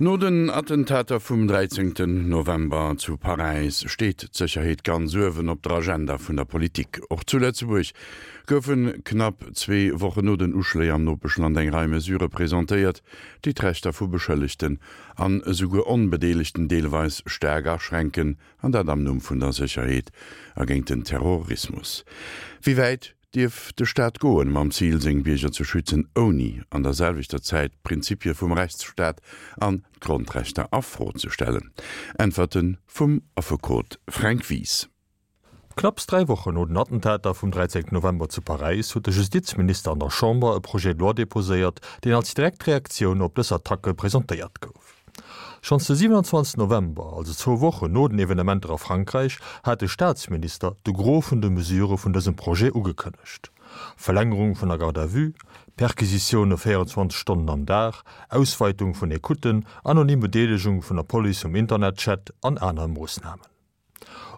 No den Attentater vum 13 November zu Paräis steet d'Sécherheet ganz uewen op der Agenda vun der Politik. Och zu Lëtzebuerg goufe knapp zwee Wochen no den Uschléi am Nopeschland eng Rei Mesurë presentéiert, déi d'Rechter vu Beschëllegten an esouguer Onbedeelegten deelweis staark aschränken, an dat am Numm vun der Sécherheet a géint den Terrorismus. Wéi wäit dierf de Staat goen, mam Zil, seng Bierger ze schützen, ouni an der selwechter Zäit d'Prinzipie vum Rechtsstaat an d'Grondrechter a Fro ze stellen? Äntwerte vum Affekot Fränk Wies. Knapps 3 Wochen no den Attentater vum 13 November zu Paräis huet de Justizminister an der Chamber e Projet de loi deposéiert, deen als direkt Reaktioun op dës Attacke presentéiert gouf. Schonns de 27 November, also zwou Wochen no den Evenementer a Frankräich, hat de Staatsminister de Gros vun de Mesurë vun dësem Projet ugekënnegt, Verlängerung vun der Garde à vue, Perquisitioune 24 Stonnen am Dag, Ausweitung vun Ecouten, anonym Bedeelegung vun der Police um Internetchat an aner Moossnamen.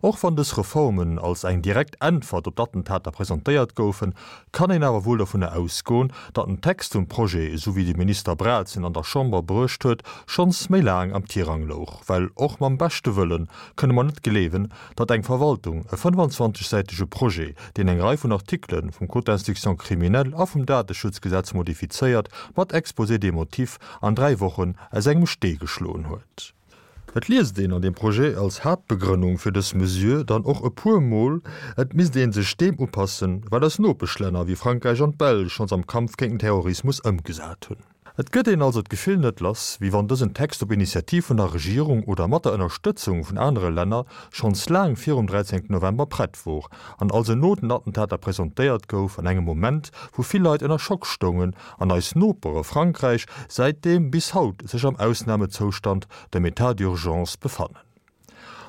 Och wann dës Reformen als eng direkt Äntwert op d'Attentater presentéiert goufen, kann een awer wuel dovunner ausgoen, datt den Text vum Projet, esou wéi de Minister Braz en an der Chamber bruecht huet, schonns méi laang am Tirang louch. Well och mam beschte Wëlle kënne mer net gleewen, datt eng Verwaltung e 25 säitege Projet, deen eng Rei vun Artikele vum Code d'instruction criminelle a vum Dateschutzgesetz modifizéiert, mat Exposé des motifs an 3 Wochen aus engem Stee geschloen huet. Et liest een an deem Projet als Haaptbegrënnung fir dës Mesure dann och e puer Mol, et misst ee sech deem upassen, wat eis Nopeschlänner wéi Frankräich an d'Belsch schonns am Kampf géint den Terrorismus ëmgesat hunn. Et gëtt een also d'Gefill net lass, wéi wann dësen Text op Initiativ vun der Regierung oder mat der Ënnerstëtzung vun anere Länner schonns laang virum 13 November prett wor an also no den Attentater presentéiert gouf, an engem Moment, wou vill Leit ënner Schock stoungen an eis Nopere Frankräich säitdeem bis haut sech am Ausnamezoustand, dem État d'urgence, befannen.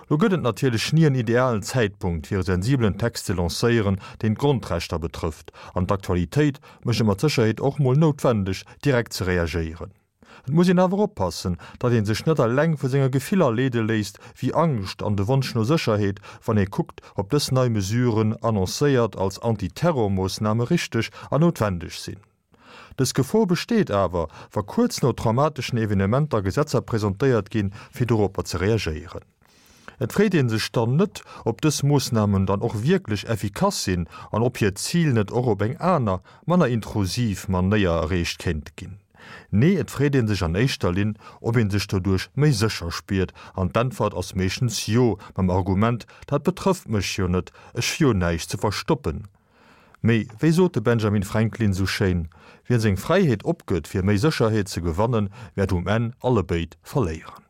Lo gëtt et natierlech ni en idealen Zäitpunkt fir e sensibelen Text ze lancéieren, deen d'Grondrechter betrëfft, an d'Aktualitéit mécht et mat Sécherheet och mol noutwendeg, direkt ze reagéieren. Et muss een awer oppassen, datt ee sech net eleng vu senge Gefiller leede léisst, wéi Angscht an de Wonsch no Sécherheet, wann ee kuckt, ob dës nei Mesuren, annoncéiert als Antiterrormoossname, richteg an noutwendeg sinn. Dës Gefor besteet awer, wa kuerz no traumateschen Evenementer Gesetzer presentéiert ginn, fir doropper ze reagéieren. Et freet ee sech dann net, ob dës Moossnamen dann och wierklech effikass sinn an ob hiert Zil net och op eng aner, manner intrusiv Manéier erreecht kéint ginn. Nee, et freet ee sech an éischter Linn, ob ee sech doduerch méi sécher spiert, an d'Äntwert ass meeschtens Jo, mam Argument, dat betrëfft mech jo net, ech hu jo näischt ze verstoppen. Mee wéi sot de Benjamin Franklin sou schéin, Wien seng Fräiheet opgëtt fir méi Sécherheet ze gewannen, wäert um Enn allebéid verléieren.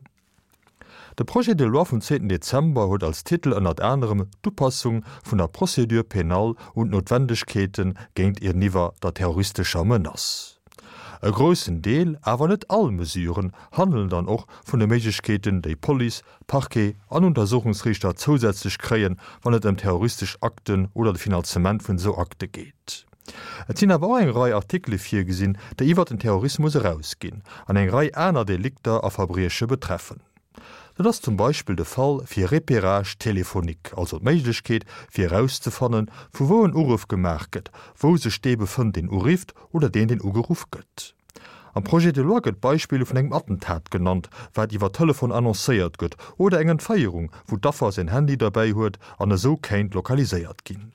De Projet de loi vum zweeten Dezember huet als Titel ënnert anerem d'Upassung vun der Procédure pénale un d'Noutwendegkeete géintiwwer der terroristescher Menace. E groussen Deel, awer net all Mesuren, handelen dann och vun de Méiglechkeeten, déi Police, Parquet an Untersuchungsriichter zousätzlech kréien, wann et ëm terroristesch Akten oder de Finanzement vun esou Akte geet. Et sinn awer och eng Rei Artikele virgesinn, déi iwwert den Terrorismus erausginn an eng Rei aner Delikter a Verbrieche betreffen. Dat ass zum Beispill de Fall fir Repérage téléphonique, also d'Méiglechkeet, fir erauszefannen, vu wou en Uruff gemaach gëtt, wou sech dee befënnt, deen urifft, oder deen, deen ugeruff gëtt. Am Projet de loi gëtt d'Beispill vun engem Attentat genannt, wat iwwer Telefon annoncéiert gëtt, oder eng Entféierung, wou d'Affer säin Handy derbäi huet an esou kéint lokaliséiert ginn.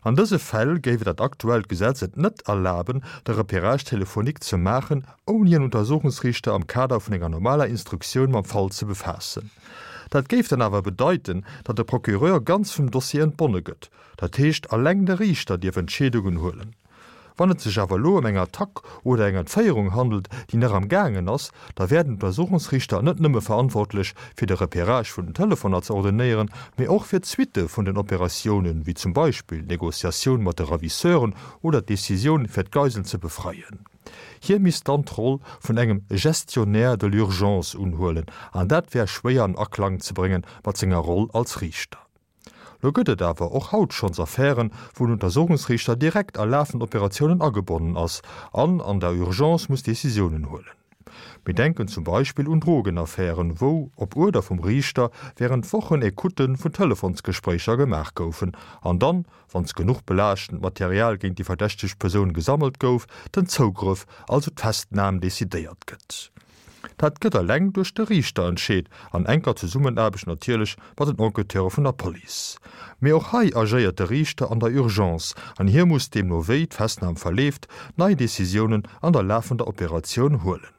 An dëse Fäll géif et dat aktuellt Gesetz et net erlaben, de Repérage téléphonique ze maachen, ouni en Untersuchungsriichter am Kader vun enger normaler Instruktioun mam Fall ze befaassen. Dat géif dann awer bedeiten, datt de Procureur ganz vum Dossier entbonne gëtt, dat heescht alleng de Riichter dierf Entscheedungen huelen. Wann et sech awer elo ëm eng Attack oder eng Entféierung handelt, déi nach am gaangen ass, da wär den Untersuchungsriichter net nëmme verantwortlech, fir de Repérage vun den Telefoner ze ordonéieren, mee och fir d'Suitte vun den Operatiounen, wéi zum Beispill d'Negociatioun mat de Ravisseuren oder d'Decisioun, fir d'Geisel ze befreien. Hie misst dann d'Roll vun engem Gestionnaire de l'urgence unhuelen, an dat wär schwéier an Aklang ze brénge mat senger Roll als Riichter. Lo gëtt et awer och haut schonns Affären, wou den Untersuchungsriichter direkt a lafend Operatiounen agebonnen ass an an der Urgence muss Decisiounen huelen. Mir denken zum Beispill un Drogenaffären, wou, op Uerder vum Riichter, wärend Wochen Ecoutte vun Telefonsgespréicher gemaach goufen an dann, wann genuch belaaschtend Material géint déi verdächtegt Persoun gesammelt gouf, den Zougrëff, also d'Festnam, decidéiert gëtt. Dat gëtt eleng duerch de Riichter entscheet, an enker Zesummenaarbecht natierlech mat den Enquêteure vun der Police. Mee och hei agéiert de Riichter an der Urgence an hie muss, deemno wéi d'Festnam verleeft, nei Decisiounen an der lafender Operatioun huelen.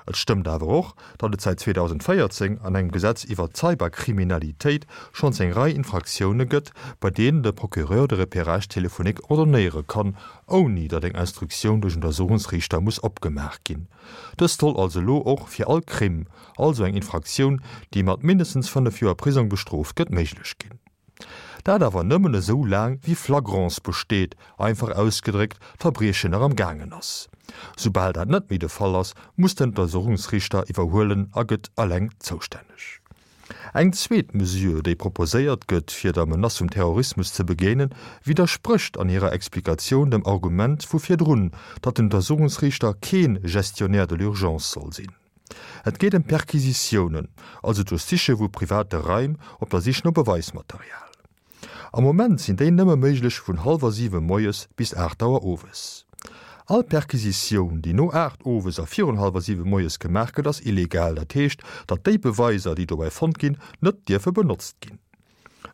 Et stëmmt awer och, datt et säit 2014 an engem Gesetz iwwert d'Cyberkriminalitéit schonns eng Rei Infraktioune gëtt, bei deenen de Procureur de Repérage téléphonique ordonnéiere kann, ouni datt eng Instruktioun duerch Untersuchungsriichter muss opgemaach ginn. Dëst soll also elo och fir all Crime, also eng Infraktioun, déi mat mindestens 5 Joer Prisong bestrooft gëtt, méiglech ginn. Dat awer nëmmen esou laang wéi Flagrance besteet, einfach ausgedréckt, d'Verbriechen nach am gaangen ass. Soubal dat net méi de Fall ass, muss den Untersuchungsriichter iwwerhuelen a gëtt eleng zoustänneg. Eng zweet Mesure, déi proposéiert gëtt, fir der Menace vum Terrorismus ze begéinen, widdersprécht an hirer Explikatioun dem Argument vu virdrun, datt den Untersuchungsriichter kee Gestionnaire de l'urgence soll sinn. Et geet ëm Perquisitiounen, also d'Duerchsiche vu private Raim op der Sich no Beweismaterial. Am Moment sinn déi nëmme méiglech vun hallwer 7 moies bis 8 Auer owes. All Perquisitioun, déi no 8 owes a virun hallwer 7 moies gemaach gëtt, ass illegal. Dat heescht, datt déi Beweiser, déi dobäi fonnt ginn, net dierfe benotzt ginn.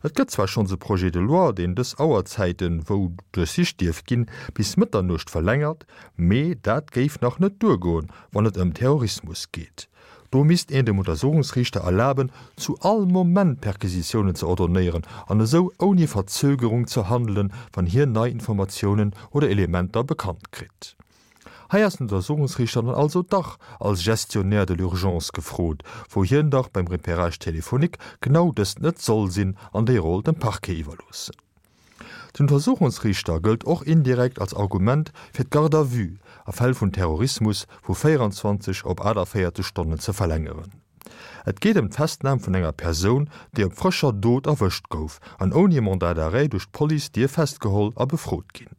Et gëtt zwar schonns e Projet de loi, deen dës Auerzäiten, wou duerchsicht dierf ginn, bis Mëtternuecht verlängert, mee dat géif nach net duergoen, wann et ëm Terrorismus geet. Do misst een dem Untersuchungsriichter erlaben, zu all Moment Perquisitiounen ze ordonnéieren an esou ouni Verzögerung ze handelen, wann hien nei Informatiounen oder Elementer bekannt kritt. Hei ass den Untersuchungsriichter dann also dach als Gestionnaire de l'urgence gefrot, wou hien dach beim Repérage téléphonique genau dëst net soll sinn an déi Roll dem Parquet iwwerloossen. Den Untersuchungsriichter gëllt och indirekt als Argument fir d'Garde à vue a Fäll vun Terrorismus vu 24 op 48 Stonnen ze verlängeren. Et geet ëm d'Festnam vun enger Persoun, déi op frëscher Dot erwëscht gouf an ouni e Mandat d'arrêt duerch d'Police dierf festgeholl a befrot ginn.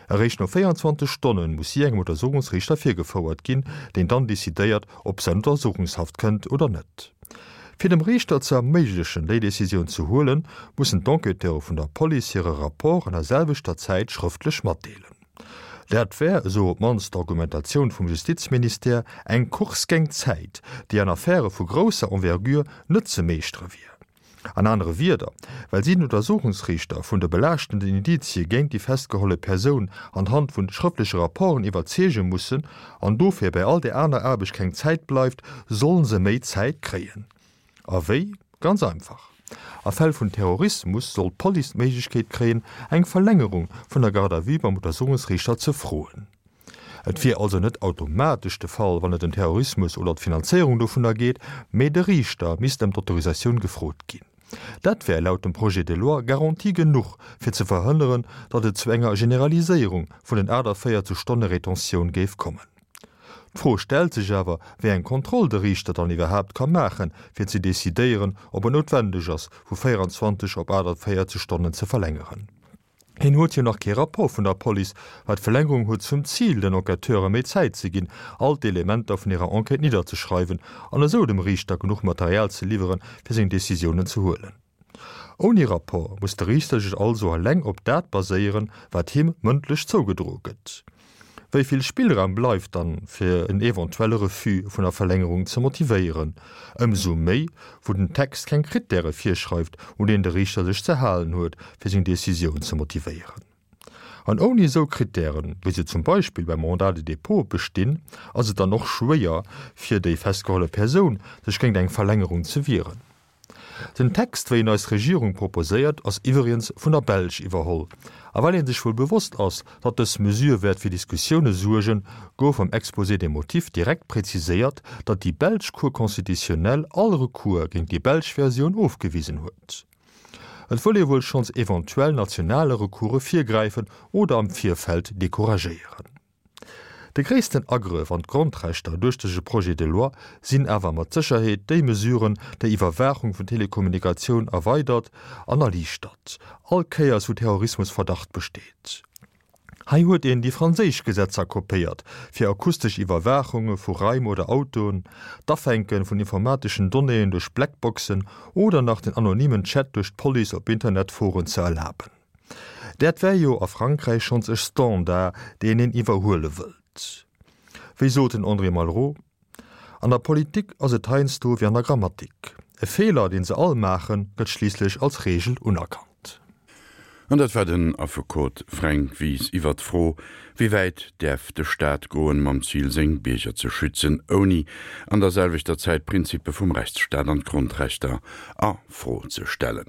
Eréischt no 24 Stonne muss si engem Untersuchungsriichter virgefouert ginn, deen dann decidéiert, ob se an Untersuchungshaft kënnt oder net. Fir dem Riichter ze erméiglechen, déi Decisioun ze huelen, mussen d'Enquêteure vun der Police hire Rapport an der selwechter Zäit schrëftlech matdeelen. Dat wär, esou op d'mannst d'Argumentatioun vum Justizministère, eng Course géint d'Zäit, déi an Affäre vu grousser Envergure net ze meeschtere wier. An anere Wierder, well si den Untersuchungsriichter vun de belaaschtenden Indizie géint déi festgeholle Persoun anhand vun schrëftleche Rapporten iwwerzeege mussen an dofir bei all där aner Aarbecht keng Zäit bleift, sollen se méi Zäit kréien. A wéi? Ganz einfach, A Fäll vun Terrorismus soll d'Police d'Méiglechkeet kréien, eng Verlängerung vun der Garde à vue beim Untersuchungsriichter ze froen. Et wier also net automatesch de Fall, wann et ëm Terrorismus oder d'Finanzéierung dovunner geet, mee de Riichter misst ëm d'Autorisatioun gefrot ginn. Dat wär laut dem Projet de loi Garantie genuch, fir ze verhënneren, datt et zu enger Generaliséierung vun den 48 Stonne Retentioun géif kommen. D'Fro stellt sech awer, wéi eng Kontroll de Riichter dann iwwerhaapt ka maachen, fir ze decidéieren, ob et noutwendeg ass, vu 24 op 48 Stonnen ze verlängeren. Hien huet jo nach kee Rapport vun der Police, well d'Verlängerung huet zum Zil, den Enquêteure méi Zäit ze ginn, all d'Elementer vun hirer Enquête nidderzeschreiwen an esou dem Riichter genuch Material ze liwweren, fir seng Decisiounen ze huelen. Ouni Rapport muss de Riichter sech also eleng op dat baséieren, wat him mëndlech zougedroe gëtt. Wéi vill Spillraum bleift dann, fir en eventuelle Refus vun der Verlängerung ze motivéieren? Ëmsou méi, wou den Text keng Krittäre virschreift, un deenen de Riichter sech ze halen huet, fir seng Decisioun ze motivéieren. An ouni esou Krittären, wéi se zum Beispill beim Mandat de dépôt bestinn, ass et dann och schwéier, fir déi festgeholle Persoun, sech géint eng Verlängerung ze wieren. Den Text, wéi en eis Regierung proposéiert, ass iwwregens vun der Belsch iwwerholl. A well ee sech wuel bewosst ass, datt dës Mesure wäert fir Diskussioune suergen, gouf am Exposé des motifs direkt präziséiert, datt déi belsch Cour constitutionnelle all Recours géint déi belsch Versioun ofgewisen huet. Et wëll ee wuel schonns eventuell nationale Recourse virgräifen oder am Virfeld decouragéieren. De gréissten Agrëff an d'Grondrechter duerch dëse Projet de loi sinn awer mat Sécherheet déi Mesuren, déi Iwwerwaachung vun Telekommunikatioun erweidert an erliichtert, all Kéiers wou Terrorismusverdacht besteet. Hei huet een déi franséisch Gesetzer kopéiert, fir akustesch Iwwerwaachunge vu Raim oder Autoen, d'Afänke vun informateschen Donnéeën duerch Blackboxen oder nach den anonymen Chat duerch d'Police op Internetforen ze erlaben. Dat wär jo a Frankräich schonns e Standard, deen een iwwerhuele wëllt. Wéi sot den André Malraux? An der Politik ass et heiansdo wéi an der Grammatik, E Feeler, deen se all maachen, gëtt schliisslech als Reegel unerkannt. An dat war den Affekot Fränk Wies iwwert d'Fro, Wéi wäit däerf de Staat goen, mam Zil seng Bierger ze schützen, ouni an der selwechter Zäit d'Prinzippe vum Rechtsstaat an d'Grondrechter a Fro ze stellen?